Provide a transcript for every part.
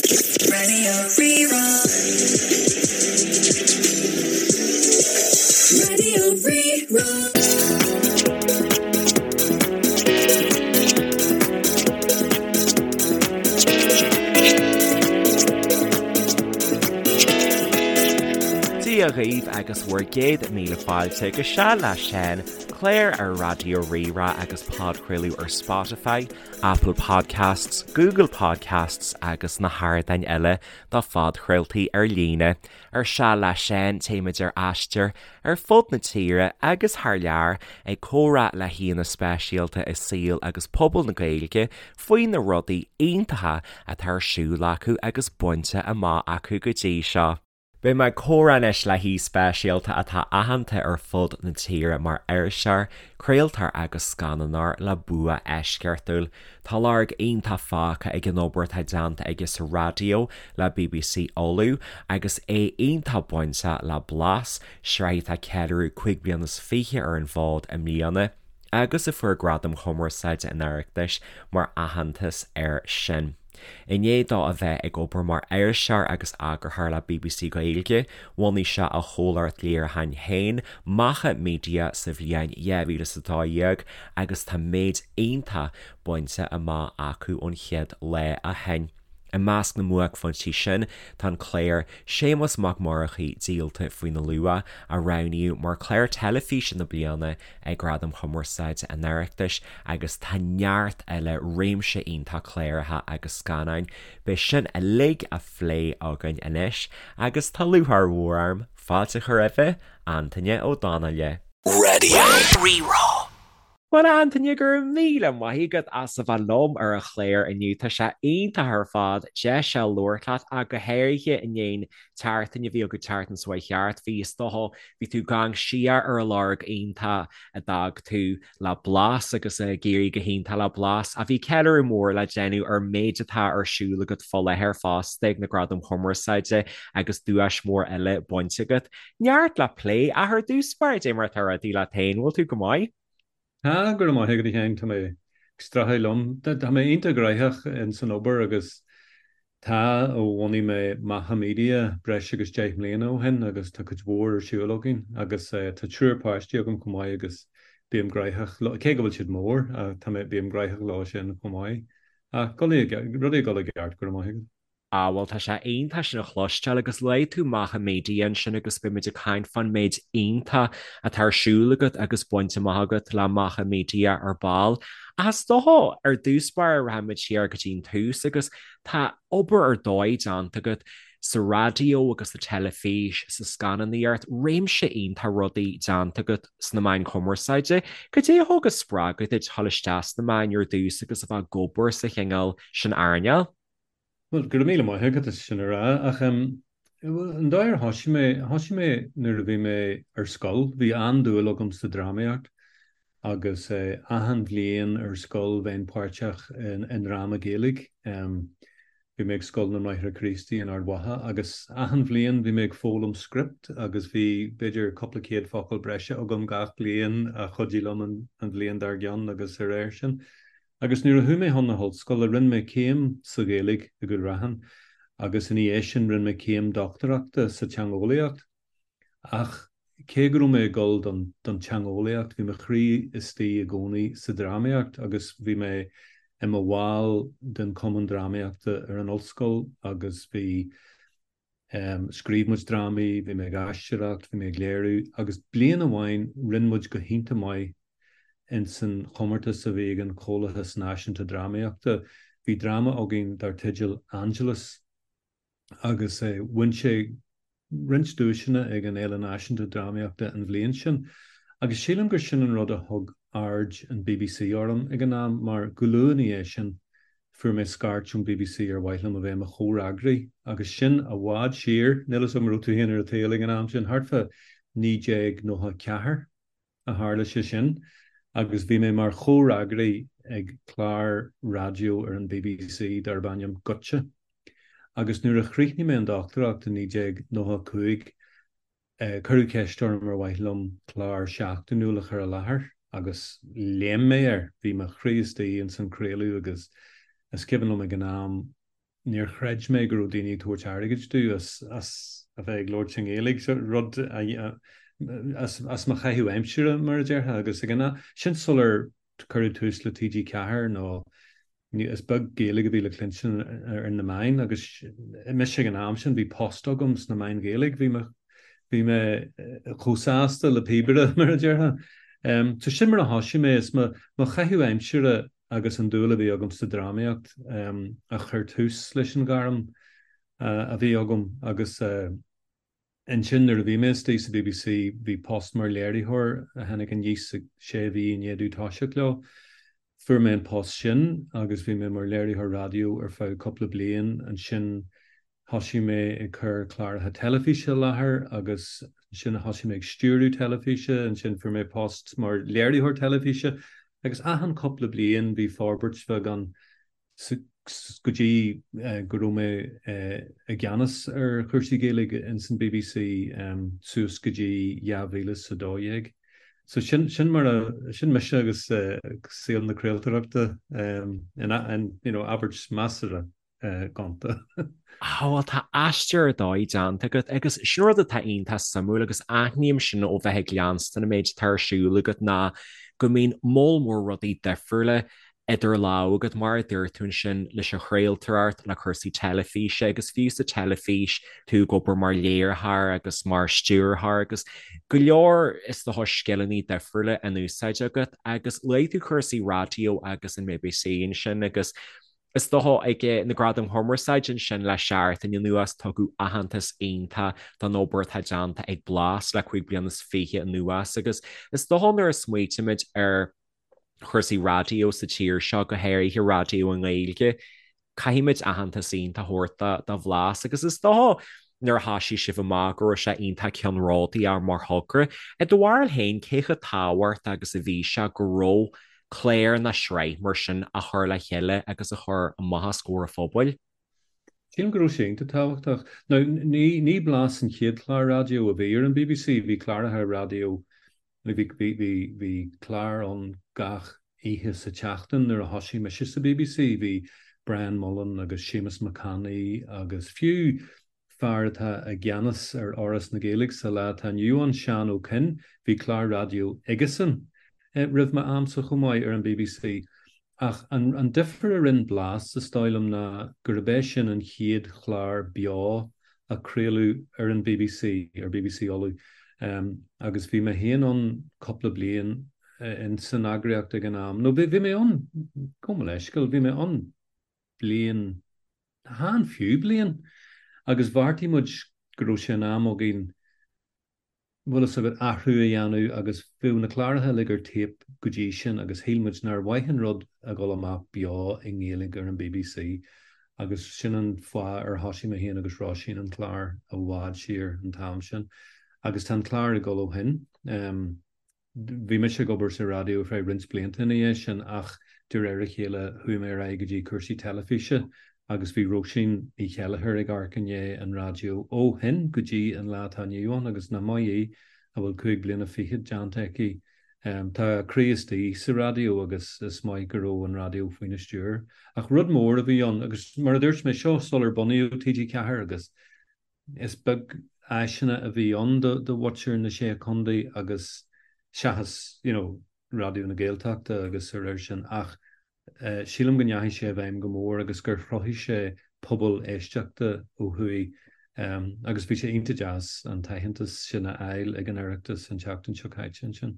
Radio Rí-Rá. Radio Rí-Rá. Dia dhaoibh agus bhur gcéad míle fáilte go Seal le Seán, clár ar Raidió Rí-Rá agus podchraoladh ar Spotify, Apple Podcasts, Google Podcasts agus na hardáin eile do phodchraoltaí ar líne. Ar Seal le Seán, téimid ar aistear ar fud na tíre agus thar lear ag comhrá le haíonna speisialta i saol agus pobal na Gaeilge faoi na rudaí iontacha atá ar siúl acu agus bainte amach acu go dtí seo. Beidh mé ag comhrá anois le haoi speisialta atá aitheanta ar fud na tíre mar iriseoir, craoltóir agus scannánóir le bua eisceachtúil. Tá lorg iontach fágtha ag an obair atá déanta aige sa raidió le bbc Uladh agus é iontach bainteach le Blas, sraith atá ag ceiliúradh 25 bliana ar an bhfód i mbliana agus a fuair Gradaim Chumarsáide an Oireachtais mar aitheantas air sin. I ndiaidh dó a bheith ag obair mar iriseoir agus eagarthóir le bbc Gaeilge, bhunaigh sé a chomhlacht léiriúcháin féin, Macha Media, sa bhliain 2012 agus tá méid iontach bainte amach acu ón chéad lá ó shin. I measc na mbuaicphointí sin tá an clár Séamas Mac Murchaidh Díolta faoina Luach, a roghnaíodh mar Chlár Teilifíse na Bliana ag Gradaim Chumarsáide an Oireachtais agus tá neart eile, réimse iontach cláracha agus scannáin. Beidh sin uilig á phlé againn anois agus tá lúcháir mhór orm fáilte a chur roimhe, Antaine Ó Donnghaile. Radio Rí-Rá. Bhuel, a Antaine, go raibh míle maith agat as a bheith liom ar an chlár inniu. Tá sé iontach ar fad deis a labhairt leat, ach go háirithe i ndiaidh an tseachtain a bhí agat, tseachtain seo chuaigh thart. Bhí, is dócha, bhí tú ag amharc siar ar an lorg iontach a d'fhág tú le Blas agus ag éirí go hiontach le Blas. Ach bhí ceiliúradh mór le déanamh ar an méid atá ar siúl agat fá láthair fosta ag na Gradaim Chumarsáide agus duais mhór eile bainte agat. Neart le plé, ach ar dtús báire, cad é mar atá rudaí leat féin, bhfuil tú go maith? Tá, go raibh maith agat a Sheáin, tá mé ag streachailt liom. Tá mé iontach gnaitheach ins an obair agus tá ó bhunaigh mé Macha Media breis agus 10 mbliana ó shin agus tá cuid mhór ar siúl againn agus tá triúr páistí agam chomh maith agus bím gnaitheach, cé go bhfuil siad mór, tá mé, bím gnaitheach leo sin chomh maith. Ach rudaí ag dul i gceart, go raibh maith agat. Ah bhuel tá sé iontach sin a chloisteáil agus luaigh tú Macha Media ansin agus beidh muid ag caint fán méid iontach atá ar siúl agat agus bainte amach agat le Macha Media ar ball. Ach is dócha ar dtús báire rachaidh muid siar go dtí an tús agus tá obair ar dóigh déanta agat sa raidió agus sa teilifís, sa scannánaíocht, réimse iontach rudaí déanta agat sna meáin chumarsáide. Cad é a thug an spreagadh duit dhul isteach sna meáin ar dtús agus a bheith ag obair sa chineál sin earnáil? Bhuel, go raibh míle maith agat as sin a rá, ach an dóigh ar thosaigh mé, thosaigh mé nuair a bhí mé ar scoil, bhí an-dúil agam sa drámaíocht agus achan bhliain ar scoil bheinn páirteach i ndráma Gaeilge. Bhí mé ag Scoil na mBráithre Críostaí in Ard Mhacha agus achan bhliain bhí mé ag foghlaim script agus bhí b'fhéidir cúpla céad focal breise agam gach bliain a chuidigh liom an bhliain dár gcionn agus ar réir sin. Agus nuair a chuaigh mé chun na hollscoile, rinne mé céim sa Ghaeilge i gCúil Raithin agus ina dhiaidh sin rinne mé céim dochtúireachta sa teangeolaíocht. Ach cé go raibh mé ag dul don don teangeolaíocht, bhí mo chroí istigh i gcónaí sa drámaíocht agus bhí mé i mo bhall den chumann drámaíochta ar an ollscoil agus bhí Scríobh muid drámaí, bhí mé ag aisteoireacht, bhí mé ag léiriú agus bliain amháin rinne muid go hiontach maith ins an chomórtas a bhí ag an Chomhlachas Náisiúnta Drámaíochta. Bhí dráma againn dar teideal Angelus agus bhain sé roinnt duaiseanna ag an Fhéile Náisiúnta Drámaíochta an bhliain sin agus sílim gur sin an rud a thug aird an bbc orm ag an am mar go luath ina dhiaidh sin Fuair mé scairt ón bbc ar mhaith liom a bheith i mo chomhfhreagraí agus sin i bhfad siar, níl 'fhios agam an raibh tú féin ar an tsaol ag an am sin, thart fá 1994 a tharla sé sin agus bhí mé mar chomhfhreagraí ag clár raidió ar an bbc darb ainm Goitse agus nuair a chríochnaigh mé an dochtúireacht i 1995, Cuireadh ceist orm ar mhaith liom clár seachtainiúil a chur i láthair agus léim mé air. Bhí mo chroí istigh ins an craoladh agus is cuimhin liom ag an am Níor chreid mé go raibh daoine ag tabhairt airgid domh as as a bheith ag labhairt i nGaeilge, so rud a as as mo chaitheamh aimsire mar a déarfá agus ag an am sin sular cuireadh tús le TG4 nó is beag Gaeilge a bhí le cluinstin ar na meáin agus mise ag an am sin bhí post agam sna meáin Ghaeilge, bhí mé bhí mé chomh sásta le píobaire mar a déarfá. So sin mar a thosaigh mé is mo mo chaitheamh aimsire agus an dúil a bhí agam sa drámaíocht a chuir tús leis an ghairm a bhí agam agus ansin nuair a bhí mé istigh sa bbc bhí post mar léiritheoir a tháinig aníos sé mhí i ndiaidh domh toiseacht leo. Fuair mé an post sin agus bhí mé mar léiritheoir raidió ar feadh cúpla bliain. Ansin Thosaigh mé ag cur cláracha teilifíse i láthair agus ansin thosaigh mé ag stiúradh teilifíse, ansin fuair mé post mar léiritheoir teilifíse agus achan cúpla bliain bhí forbairt bheag ann go dtí go raibh mé i gceannas ar chúrsaí Gaeilge ins an bbc suas go dtí 2012. So sin, sin mar a, sin mise agus saol na craoltóireachta in, you know, abairt measartha. gonta. Á bhuel tá aistear ar dóigh déanta agat agus sin rud atá iontach suimiúil agus aithním sin ó bheith ag leanstan an méid atá ar siúl agat ná go mbíonn moll mór rudaí difriúla idir lámha agat mar a dúirt tú ansin leis an chraoltóireacht, le cúrsaí teilifíse agus fiú sa teilifís tú ag obair mar léiritheoir agus mar stiúrthóir agus go leor is dócha scileanna difriúla in úsáid agat agus luaigh tú cúrsaí raidió agus an bbc ansin agus Is dócha ag na Gradaim Chumarsáide ansin le seachtain anuas tugadh aitheantas iontach don obair atá déanta ag Blas le 25 bliana anuas agus is dócha nuair a smaoitímid ar chúrsaí raidió sa tír seo, go háirithe raidió i nGaeilge, caithfimid aitheantas iontach a thabhairt do Bhlas agus is dócha nuair a thoisigh sibh amach go raibh sé iontach ceannródaíoch mar thogra. I do bharúil féin, cé chomh tábhachtach agus a bhí sé go raibh clár nó sraith mar sin a chur le chéile agus a chur amach os comhair an phobail. Sílim go raibh sé iontach tábhachtach. Now, ní, ní Blas an chéad chlár raidió a bhí ar an bbc, bhí cláracha raidió, bhí, bhí, bhí, bhí clár ann gach oíche sa tseachtain nuair a thosaigh mise sa bbc, bhí Brian Mullen agus Séamus Mac Annaidh agus fiú fear atá i gceannas ar Fhoras na Gaeilge sa lá atá inniu ann, Seán Ó Coinn, bhí clár raidió aigesan roimh m'amsa chomh maith ar an bbc. Ach an difear a rinne Blas, is dóigh liom, ná gurb é sin an chéad chlár beo a craoladh ar an bbc, ar bbc Uladh, agus bhí mé féin ann cúpla bliain in san eagraíocht ag an am, nó bhí mé ann, gabh mo leithscéal, bhí mé ann bliain, chan fiú bliain, agus bheartaigh muid go raibh sé in am againn, bhfuil fhios agat, athrú a dhéanamh agus bhíodh na cláracha uilig ar téip go dtí sin agus shíl muid nár mhaith an rud a dhul amach beo i nGaeilge ar an bbc agus sin an fáth ar thosaigh mé féin agus Róisín an clár i bhfad siar an t-am sin agus tá an clár ag dul ó shin. Bhí mise ag obair sa raidió ar feadh roinnt blianta ina dhiaidh sin ach de réir a chéile chuaigh mé ar aghaidh go dtí cúrsaí teilifíse agus bhí Róisín Ní Cheilleachair ag amharc i ndiaidh an raidió ó shin go dtí an lá atá inniu ann agus nach maith í a bhfuil 25 bliana déanta aici. Tá a croí istigh sa raidió agus is maith go raibh an raidió faoina stiúir. Ach rud mór a bhí ann agus mar a dúirt mé, seo sular bunaíodh TG4 agus Is beag áiseanna a bhí ann do mhuintir na Sé Chontae agus seachas you know Raidió na Gaeltachta agus a réir sin ach sílim go ndeachaigh sé i bhfeidhm go mór agus gur chruthaigh sé pobal éisteachta ó thuaidh agus bhí sé iontach deas an t-aitheantas sin a fháil ag an Oireachtas an tseachtain seo caite ansin.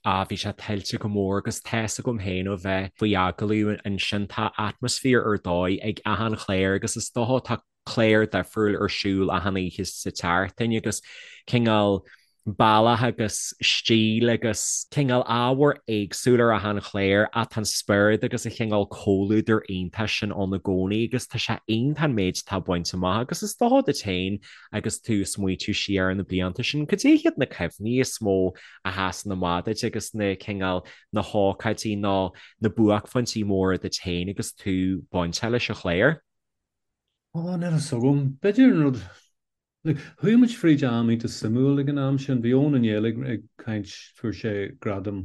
Ah, bhí sé tuillte go mór agus tá's agam féin ó bheith faoi agallamh ansin, tá atmaisféar ar dóigh ag achan chlár agus is dócha tá clár difriúil ar siúl achan oíche sa tseachtain agus cineál bealach agus stíl agus cineál ábhar éagsúil ar achan chlár ach tá an spiorad agus an cineál comhluadar iontach sin ann i gcónaí agus tá sé iontach an méid atá bainte amach agus is dócha duit féin agus tú ag smaoitiú siar ar na blianta sin, cad é hiad na cuimhní is mó a sheasann amach duit agus na cineál, na hócáidí nó na buaicphointí móra duit féin agus tú bainteach leis an chlár? Ó, níl a fhios agam. B'fhéidir an rud, like, chuaigh muid fríd am iontach suimiúil ag an am sin. Bhí Eoin Ó Néill ag, ag caint, fuair sé gradam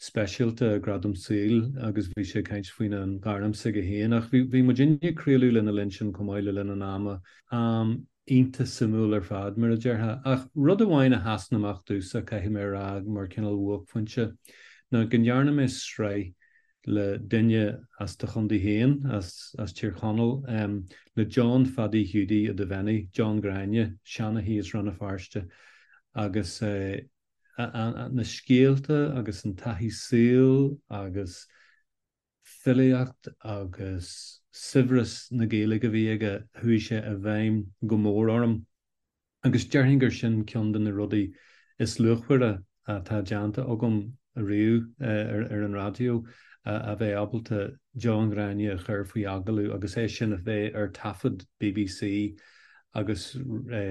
speisialta, gradam saoil agus bhí sé ag caint faoina ghairm s'aige féin ach bhí bhí muidinne ag craoladh lena linn sin chomh maith le linn an ama. Am iontach suimiúil ar fad, mar a déarfá. Ach rud amháin a sheasann amach domhsa, caithfidh mé a rá, mar cineál bhuaicphointe, ná go ndearna mé sraith le duine as do chontae féin, as as Tír Chonaill, le John Phadaí Hiúdaí Ó Duibheannaigh, John Ghráinne, seanchaí as Rann na Feirste, agus na scéalta agus an taithí saoil agus filíocht agus saibhreas na Gaeilge a bhí aige, chuaigh sé i bhfeidhm go mór orm. Agus déarfainn gur sin ceann de na rudaí is luachmhaire atá déanta agam riamh ar an raidió, a bheith ábalta John Ghráinne a chur faoi agallamh agus é sin a bheith ar taifead bbc agus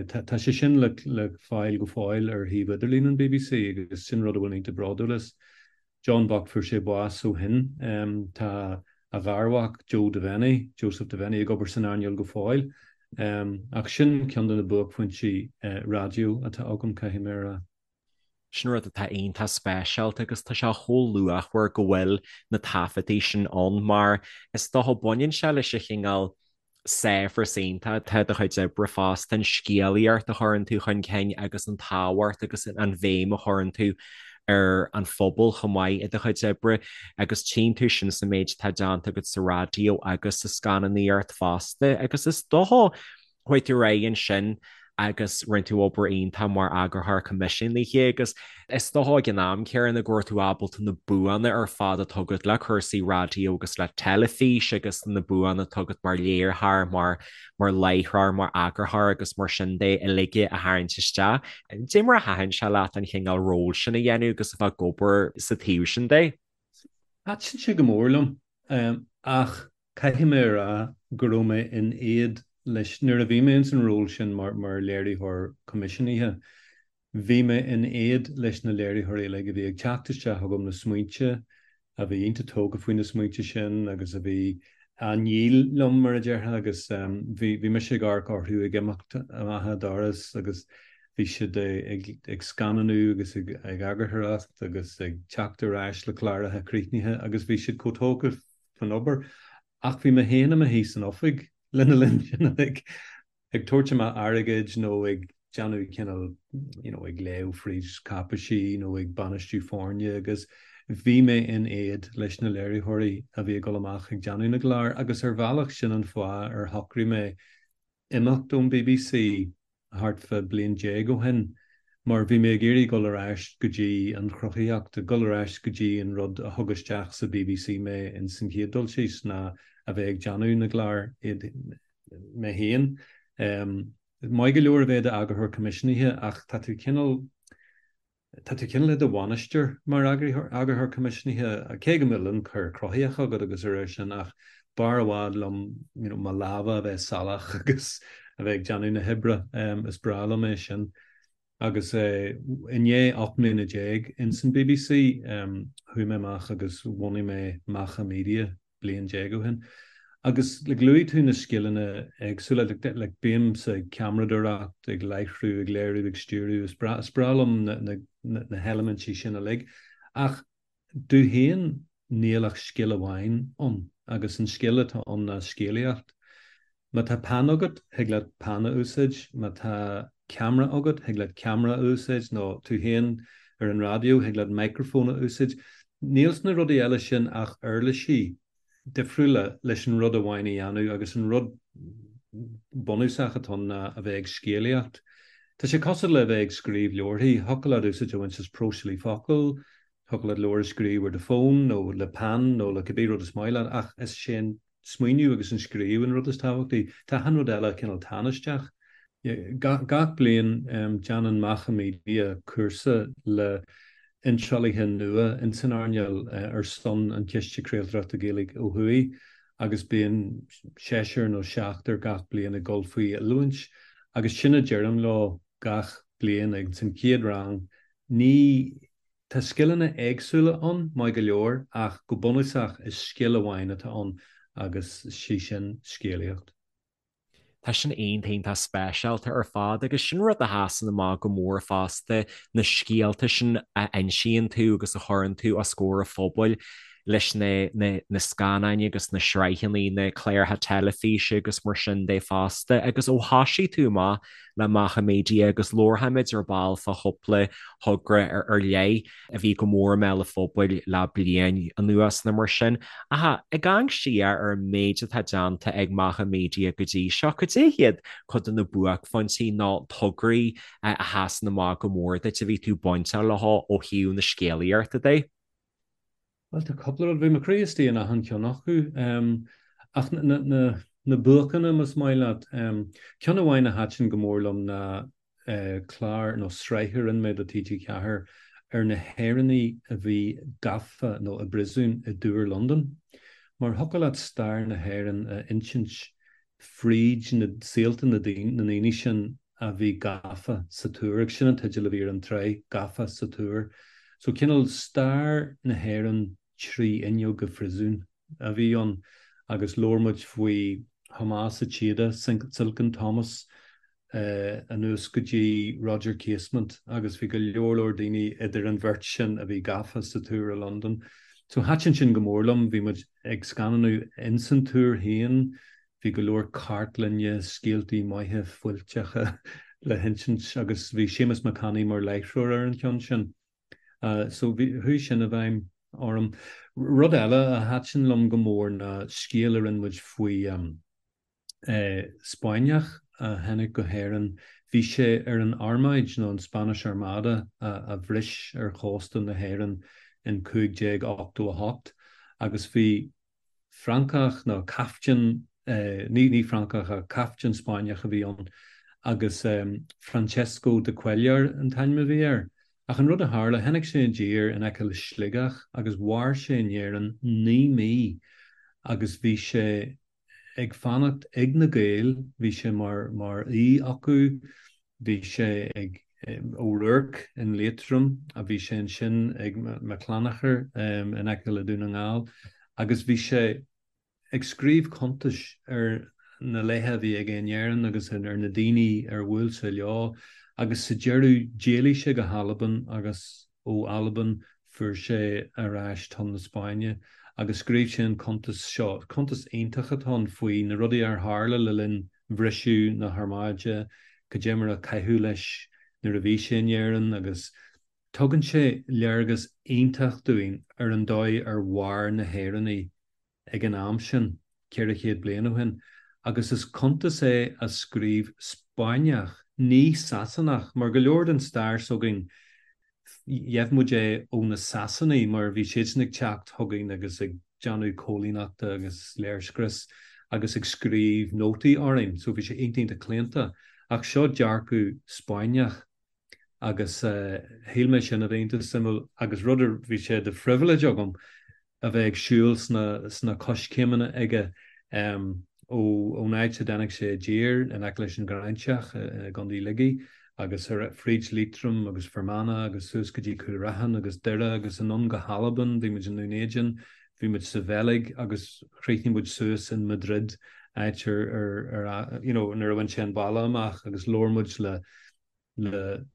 tá sé sin le fáil go fóill ar shuíomh idirlín an bbc agus sin rud a bhfuil mé iontach bródúil as. John bocht fuair sé bás ó shin. Tá a gharmhac Joe Devenney, Joseph Devenney, ag obair san earnáil go fóill. Ach sin ceann de na buaicphointí raidió atá agam, caithfidh mé a rá. Sin rud atá iontach speisialta agus tá sé chomh luachmhar go bhfuil na taifeadtaí sin ann mar is dócha baineann sé leis an chineál saibhreas iontach atá i do chuid oibre fosta, an scéalaíocht a chuireann tú chun cinn agus an tábhacht agus an bhéim a chuireann tú ar an phobal chomh maith i do chuid oibre agus tchíonn tú sin sa méid atá déanta agat sa raidió agus sa scannánaíocht fosta agus is dócha Chuaigh tú ar aghaidh ansin agus rinne tú obair iontach mar eagarthóir coimisiúnaithe agus is dócha ag an am céanna go raibh tú ábalta na buanna ar fad atá agat le cúrsaí raidió agus le teilifís agus na buanna atá agat mar léiritheoir, mar mar láithreoir, mar eagarthóir agus mar sin de uilig a tharraingt isteach. Cad é mar a thaitin sé leat an chineál ról sin a dhéanamh agus a bheith ag obair sa taobh sin de? Thaitin sé go mór liom ach Caithfidh mé a rá go raibh mé in éad leis, nuair a bhí mé ins an ról sin mar léiritheoir coimisiúnaithe, bhí mé in éad leis na léiritheoirí uilig a bhí ag teacht isteach chugam le smaointe, a bhí iontach tógtha faoi na smaointe sin agus a bhí á ndíol liom, mar a déarfá, agus bhí bhí mise ag amharc orthu ag imeacht amach an doras agus bhí siad ag scannánú agus ag eagarthóireacht agus ag teacht ar ais le cláracha críochnaithe agus bhí siad chomh tógtha faoin obair. Ach bhí mé féin i mo shuí san oifig lena linn sin uilig, ag tabhairt amach airgid nó ag déanamh cineál, you know, ag léamh fríd cáipeisí nó ag bainistiú foirne agus bhí mé in éad leis na léiritheoirí a bhí ag dul amach ag déanamh na gclár agus ar bhealach sin an fáth ar shocraigh mé imeacht ón bbc thart fá bliain déag ó shin mar bhí mé ag iarraidh dul ar ais go dtí an chruthaíocht, dul ar ais go dtí an rud a thug isteach sa bbc mé ins an chéad dul síos ná a bheith ag déanamh na gclár iad mé féin. Maith go leor a bheith i d'eagarthóir coimisiúnaithe ach tá tú cineál Tá tú cineál i do bhainisteoir mar eagarthóir coimisiúnaithe, cé go bhfuil ionchur cruthaitheach agat agus a réir sin, ach b'fhearr i bhfad liom you know mo lámha a bheith salach agus a bheith ag déanamh na hoibre. Is breá liom é sin. Agus i ndiaidh 18 mbliana ins an bbc, chuaigh mé amach agus bhunaigh mé Macha Media bliain déag ó shin. Agus like luaigh tú na scileanna éagsúla, like like bímse ag ceamaradóireacht, ag láithriú, ag léiriú, ag stiúradh, is breá is breá liom na na na heilimintí sin uilig. Ach domh féin níl ach scil amháin ann agus an scil atá ann ná scéalaíocht. Má tá peann agat, thig leat peann a úsáid, má tá ceamara agat, thig leat ceamara a úsáid, nó tú féin ar an raidió, thig leat micreafón a úsáid. Níl sna rudaí eile sin ach uirlisí difriúla leis an rud amháin a dhéanamh agus an rud bunúsach atá ann ná a bheith ag scéalaíocht. Tá sé cosúil le bheith ag scríobh leabharthaí, thiocfadh leat úsáid a bhaint as próiseálaí focal, thiocfadh leat leabhar a scríobh ar do fón nó le peann nó le cibé rud is maith leat ach is é an smaoineamh agus an scríobh an rud is tábhachtaí. Tá achan rud eile cineál tánaisteach. Gach bliain déanann Macha Media cúrsa le hiontrálaithe nua ins an earnáil ar son an Chiste Craoltóireachta Gaeilge ó thuaidh agus bíonn seisear nó seachtar gach bliain ag dul faoi oiliúint agus sin a deirim leo gach bliain ins an chéad rang, ní Tá scileanna éagsúla ann, maith go leor, ach go bunúsach is scil amháin atá ann agus sí sin scéalaíocht. Tá sin iontach iontach speisialta ar fad agus sin rud a sheasann amach go mór fosta, na scéalta sin a insíonn tú agus a chuireann tú os comhair an phobail leis na na scannáin agus na sraitheanna, na cláracha teilifíse agus mar sin de fosta. Agus ó thosaigh tú amach le Macha Media agus labharfaimid ar ball fá chúpla thogra ar leith, a bhí go mór i mbéal an phobail le bliain anuas nó mar sin. Ach ag amharc siar ar an méid atá déanta ag Macha Media go dtí seo, cad é hiad cuid de na buaicphointí nó tograí a sheasann amach go mór duit a bhí tú bainteach leo ó thaobh na scéalaíochta de? Bhuel, tá cúpla rud, bhí mo chroí istigh in achan cheann acu. Ach na buacanna, más maith leat. Ceann amháin a thaitin go mór liom ná clár nó sraith a rinne mé do TG4 ar na hÉireannaigh a bhí gafa nó i bpríosún i dTúr Londan. Mar thiocfadh leat stair na hÉireann a insint fríd na saolta na ndaoine sin a bhí gafa sa Túr, agus sin an teideal a bhí ar an tsraith, Gafa sa Túr. So cineál stair na hÉireann 3 fhuinneog i phríosún a bhí ann agus labhair muid faoi Thomás a' tSíoda, Silken Thomas, anuas go dtí Roger Casement agus bhí go leor leor daoine idir an bheirt sin a bhí gafa sa Túr i Londain. So thaitin sin go mór liom, bhí muid ag scannánú ins an Túr féin, bhí go leor cartlainne, scéaltaí maithe fuilteacha le hinsint agus bhí Séamus Mac Annaidh mar láithreoir ar an cheann sin. So bhí, chuaigh sin i bhfeidhm orm. Rud eile a thaitin liom go mór ná scéal a rinne muid faoi Spáinneach a tháinig go hÉirinn. Bhí sé ar an armáid nó an Spanish Armada a bhris ar chósta na hÉireann in 1588 agus bhí Francach nó captaen, ní Francach ach captaen Spáinneach a bhí ann agus Francesco de Cuéllar an t-ainm a bhí air. Ach an rud a tharla, tháinig sé i dtír in aice le Sligeach agus mhair sé in Éirinn 9 mí agus bhí sé ag fanacht ag na Gaeil, bhí sé mar mar aoi acu, bhí sé ag O'Rourke in Liatroim, a bhí sé ansin ag McClanacher in aice le Dún na nGall agus bhí sé ag scríobh cuntais ar na laetha a bhí aige in Éirinn agus ar na daoine ar bhuail sé leo agus sa deireadh d'éalaigh sé go hAlbain agus ó Albain fuair sé ar ais chun na Spáinne agus scríobh sé an cuntas seo, cuntas iontach atá ann faoi na rudaí ar tharla le linn bhriseadh na hArmáide, cad é mar a caitheadh leis nuair a bhí sé in Éirinn agus tugann sé léargas iontach dúinn ar an dóigh ar mhair na hÉireannaigh ag an am sin, 400 bliain ó shin, agus is cuntas é a scríobh Spáinneach, ní Sasanach, mar go leor den stair s'againn, gheibh muid é ó na Sasanaigh mar bhí siadsan ag teacht chugainn agus ag déanamh coilíneachta agus léirscrios agus ag scríobh nótaí orainn, so bhí sé iontach iontach claonta. Ach seo dearcadh Spáinneach agus shíl mé sin a bheith iontach suimiúil agus rud a bhí sé de phribhléid agam a bheith ag siúl sna coiscéimeanna aige ón áit a dtáinig sé i dtír in aice leis an Ghráinseach i gContae Shligigh agus ar fríd Liatroim agus Fear Manach agus suas go dtí Cúil Raithin agus Doire agus anonn go hAlbain, bhí muid i nDún Éideann, bhí muid sa Bheilg agus chríochnaigh muid suas in Madrid áit ar ar you know nuair a bhain sé an baile amach agus labhair muid le le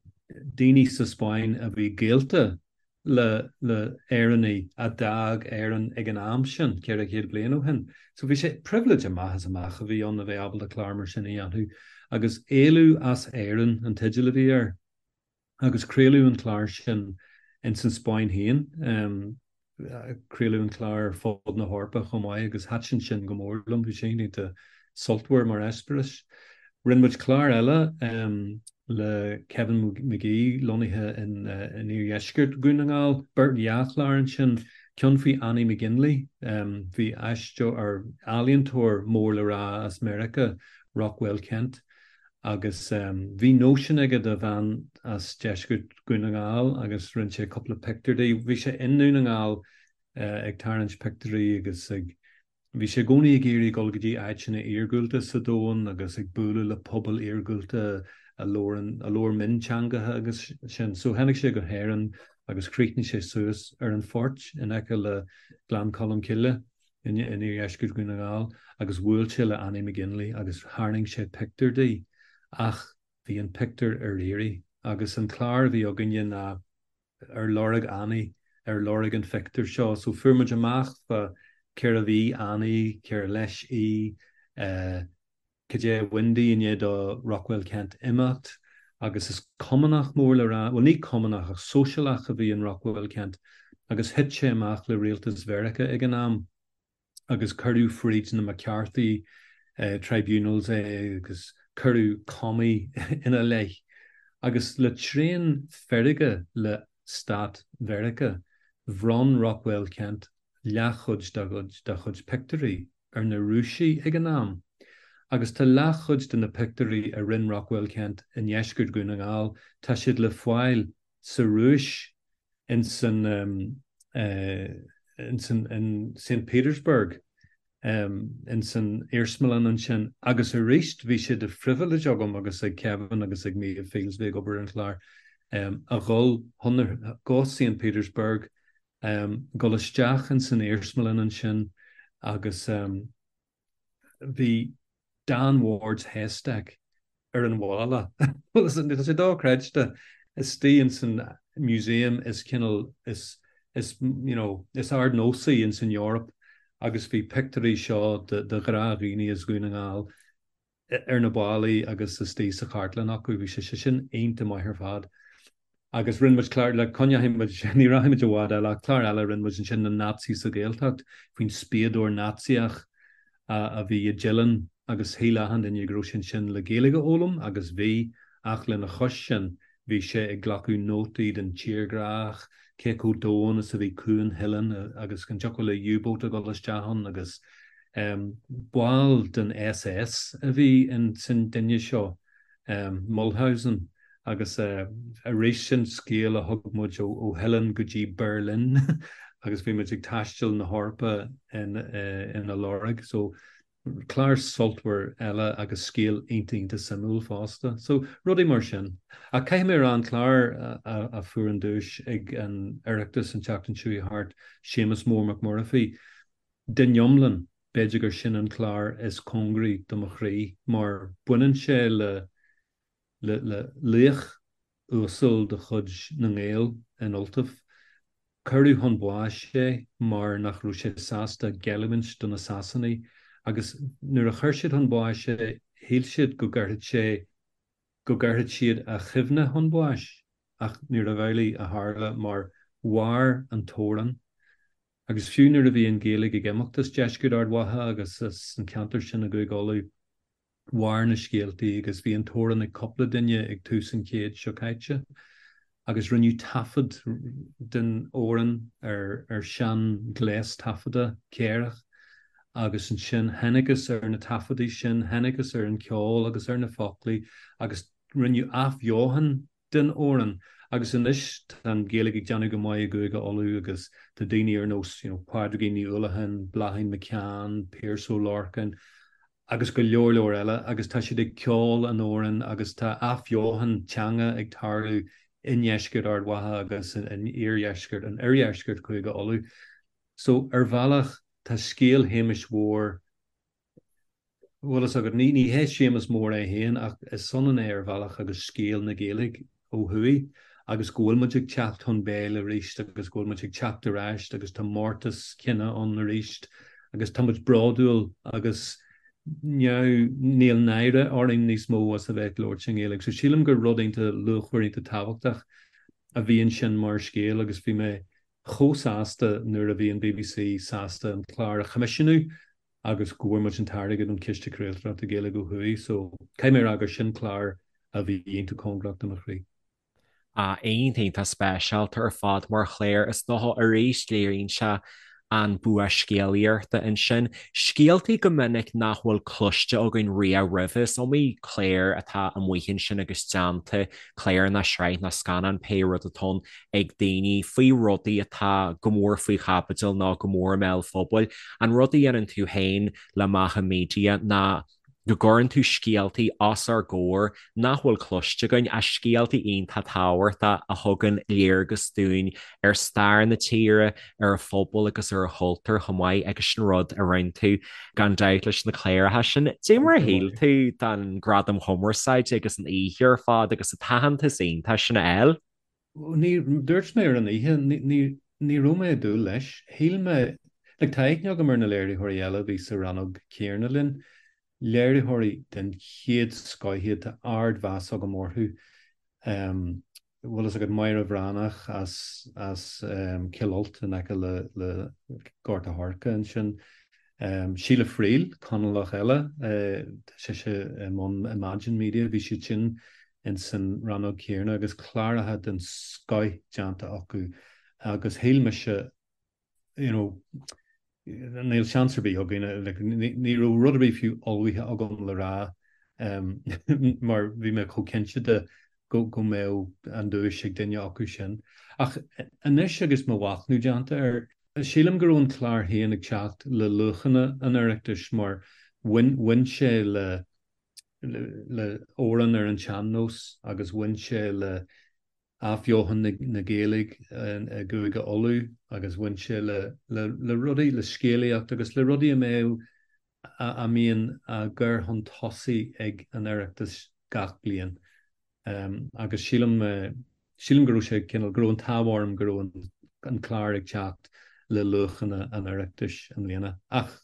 daoine sa Spáinn a bhí gaolta le le hÉireannaigh a d'fhág Éirinn ag an am sin, 400 bliain ó shin. So bhí sé, pribhléid amach is amach a bhí ann a bheith ábalta clár mar sin a dhéanamh. Agus Éalú as Éirinn an teideal a bhí air. Agus craoladh an clár sin ins an Spáinn féin. Craoladh an clár ar fud na hEorpa chomh maith agus thaitin sin go mór liom, bhí sé iontach sultmhar mar eispéireas. Rinne muid clár eile le Kevin McGee lonnaithe in iardheisceart Dhún na nGall, beirt dhá chlár ansin, ceann faoi Annie McGinley, bhí aisteoir, ealaíontóir mór le rá as Meiriceá, Rockwell Kent, Agus bhí nóisean aige do bhean as deisceart Dhún na nGall agus rinne sé cúpla pictiúr di. Bhí sé i nDún na nGall ag tarraingt pictiúirí agus ag, bhí sé i gcónaí ag iarraidh dul go dtí áiteanna iargúlta sa domhan agus ag bualadh le pobail iargúlta a labhrann, a labhair mionteangacha agus sin. So tháinig sé go hÉirinn agus chríochnaigh sé suas ar an Phort in aice le Gleann Cholm Cille. In iardheisceart Dhún na nGall agus bhuail sé le Annie McGinley agus tharraing sé pictiúr di ach bhí an pictiúr ar iarraidh agus an clár a bhí againne ná ar lorg Annie, ar lorg an phictiúir seo. So fuair muid amach fá cérbh í Annie, cér leis í, eh, Cad é a bhain di i ndiaidh do Rockwell Kent imeacht agus is Cumannach mór le rá, bhuel ní Cumannach ach Sóisialach a bhí in Rockwell Kent agus thit sé amach le rialtas Mheiriceá ag an am agus cuireadh fríd na McCarthy Tribunals é agus cuireadh commie ina leith agus le tréan feirge le stát Mheiriceá bhronn Rockwell Kent leathchuid dá chuid pictiúirí ar na Rúisigh ag an am, agus tá leathchuid de na pictiúirí a rinne Rockwell Kent i ndeisceart Dhún na nGall, tá siad le fáil sa Rúis, in san in san in Saint Petersburg, in san iarsmalann ansin. Agus arís bhí sé de phribhléid agam agus ag Kevin agus ag Méabh Fields, a bhí ag obair ar an chlár, a dhul chun go Saint Petersburg Dul isteach in san iarsmalann ansin agus bhí Dan Ward's Haystack ar an bhalla. Bhuel, tá sé dochreidte. Istigh in san museum is cineál is is you know is ardnósaí in san Eoraip agus bhí pictiúirí seo de de ghnáthdhaoine as Dhún na nGall ar na ballaí agus istigh sa chartlann acu. Bhí sé sin iontach maith ar fad. Agus rinne muid clár, le coinneoidh muid, ní rachaidh muid i bhfad eile, ach clár eile a rinne muid ansin, na Naitsí sa Ghaeltacht, faoin spiadóir Naitsíoch a bhí i dTeileann agus shíl achan duine go raibh sé ansin le Gaeilge a fhoghlaim agus bhí, ach lena chois sin bhí sé ag glacadh nótaí den tírdhreach, cé chomh domhain is a bhí Cuan Theileann agus an dtiocfadh le U-boat a dhul isteach ann agus Ball den SS a bhí in san duine seo, Mulhausen, agus arís sin scéal a thug muid ó Theileann go dtí Berlin agus bhí muid ag taisteal na hEorpa ina lorg. So clár sultmhar eile agus scéal iontach iontach suimiúil fosta. So rudaí mar sin. Ach caithfidh mé a rá an clár a fuair an duais ag an Oireachtas an tseachtain seo chuaigh thart, Séamus Mór Mac Muirfí, Den iomlán, b'fhéidir gur sin an clár is cóngaraí do mo chroí, mar baineann sé le le le laoch uasal de chuid na nGael in Ultaibh. Cuireadh chun báis é mar nach raibh sé sásta géilliúint do na Sasanaigh agus nuair a chuir siad chun báis é, shíl siad go gcuirfeadh sé go gcuirfeadh siad a chuimhne chun báis ach níorbh amhlaidh a tharla mar mhair an t-amhrán Agus fiú nuair a bhí an Ghaeilge ag imeacht as deisceart Ard Mhacha agus as an cheantar sin i gCúige Uladh, mhair na scéaltaí agus bhí an t-amhrán ag cúpla duine ag tús an chéid seo caite agus rinneadh taifead den amhrán ar ar sean-ghléas taifeadta céarach agus ansin thángthas ar na taifeadaí sin, thángthas ar an cheol agus ar na foclaí agus rinneadh athbheochan den amhrán agus anois tá an Ghaeilge ag déanamh go maith i gCúige Uladh agus tá daoine ar nós you know Pádraigín Ní Uallacháin, Bláithín McCann, Pearse Ó Lorcáin agus go leor leor eile agus tá siad ag ceol an amhráin agus tá athbheochan teanga ag tarlú i ndeisceart Ard Mhacha agus in iardheisceart in oirdheisceart Chúige Uladh. So ar bhealach tá scéal Shéamais Mhóir Bhfuil fhios agat, ní hé Séamus Mór é féin ach is ionann é ar bhealach agus scéal na Gaeilge ó thuaidh agus go bhfuil muid ag teacht chun béil arís agus go bhfuil muid ag teacht ar ais agus tá mórtas cine ann arís agus tá muid bródúil agus níl náire orainn níos mó as a bheith ag labhairt i nGaeilge. So sílim gur rud iontach luachmhar iontach tábhachtach a bhí ansin mar scéal agus bhí mé chomh sásta nuair a bhí an BBC sásta an clár a choimisiúnú agus go bhfuair muid an t-airgead ón Chiste Craoltóireachta Gaeilge ó thuaidh so caithfidh mé a rá gur sin clár a bhí iontach cóngarach do mo chroí. Ah, iontach iontach speisialta ar fad mar chlár is dócha arís léiríonn sé an bua scéalaíochta ansin. Scéaltaí go minic nach bhfuil cloiste againn riamh roimhe. Is iomaí clár atá amuigh ansin agus déanta, clár nó sraith nó scannán, pé rud atá ann, ag daoine faoi rudaí atá go mór faoi chaibidil nó go mór i mbéal an phobail. An rud a dhéanann tú féin le Macha Media ná. go gcuireann tú scéaltaí os ár gcomhair nach bhfuil cloiste againn, ach scéaltaí iontach tábhachtach a thugann léargas dúinn ar stair na tíre, ar a phobal agus ar a chultúr chomh maith agus sin rud a rinne tú gan dabht leis na cláracha sin. Dé mar a shíl tú den Gradam Chumarsáide agus an oíche ar fad agus an t-aitheantas iontach sin a fháil? Ní, dúirt mé ar an oíche, ní, ní raibh mé ag dúil leis. Shíl mé, like tá aithne agam ar na léiritheoirí eile a bhí sa rannóg chéanna linn, léiritheoirí den chéad scoth iad, tá ardmheas agam orthu. Bhfuil fhios agat Máire Bhreathnach as, as Cill Ailt in aice le, le Gort a' Choirce ansin. Síle Friel, Conallach eile, tá sise i mbun Imagine Media, bhí siad sin ins an rannóg chéanna agus cláracha den scoth déanta acu agus shíl mise you know, níl seans ar bith againn, like, ní raibh rud ar bith fiú ullmhaithe agam le rá mar bhí mé chomh cinnte de go go mbeadh an duais ag duine acu sin. Ach anois agus mo mhachnamh déanta air, sílim go raibh an clár féin ag teacht le luachanna an Oireachtais mar bhain bhain sé le le amhrán ar an tsean-nós agus bhain sé le athbheochan na Gaeilge i gCúige Uladh agus bhain sé le le rudaí, le scéalaíocht agus le rudaí a mbeadh, a mbíonn á gcur chun tosaigh ag an Oireachtas gach bliain. Agus sílim, sílim go raibh sé cineál, go raibh an t-ádh orm go raibh an clár ag teacht le luachanna an Oireachtais i mbliana. Ach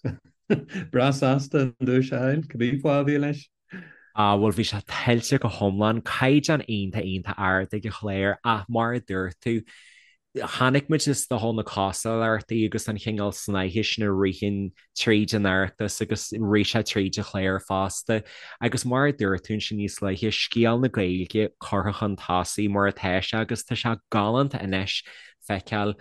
breá sásta an duais a fháil, cibé fáth a bhí leis. Ah, bhuel, bhí sé tuillte go hiomlán, caighdeán iontach iontach ard ag an chlár ach mar a dúirt tú, chonaic muid is dócha na cosúlachtaí agus an chineál snáithe sin a ritheann tríd an Oireachtas agus rith sé tríd an chlár fosta. Agus mar a dúirt tú ansin níos luaithe, scéal na Gaeilge curtha chun tosaigh mar atá sé agus tá sé galánta anois feiceáil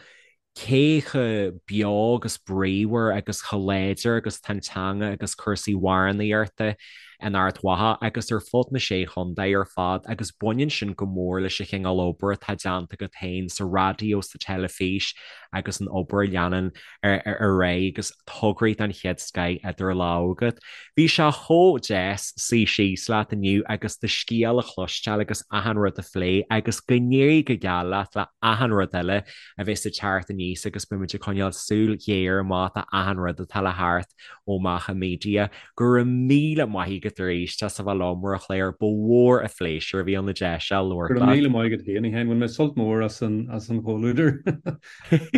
cé chomh beo agus bríomhar agus chomh láidir agus atá an teanga agus cúrsaí amhránaíochta in Ard Mhacha agus ar fud na Sé Chontae ar fad agus baineann sin go mór leis an chineál obair atá déanta agat féin sa raidió, sa teilifís agus an obair a leanann ar aghaidh agus tograí den chéad scoith idir lámha agat. Bhí sé chomh deas suí síos leat inniu agus do scéal a chloisteáil agus achan rud a phlé agus go n-éirí go geal leat le achan rud eile a bheas ag teacht aníos agus beimid ag coinneáil súil ghéar amach do achan rud atá le theacht ó Macha Media. Go raibh míle maith agat arís as a bheith liom ar an chlár, ba mhór an phléisiúr a bhí ann an deis seo labhairt leat. Go raibh míle maith agat féin, a Sheáin. Bhain mé sult mór as an as an chomhluadar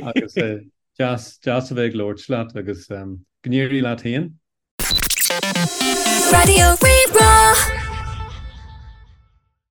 agus deas deas a bheith ag labhairt leat agus go n-éirí leat féin. Raidió Rí-Rá.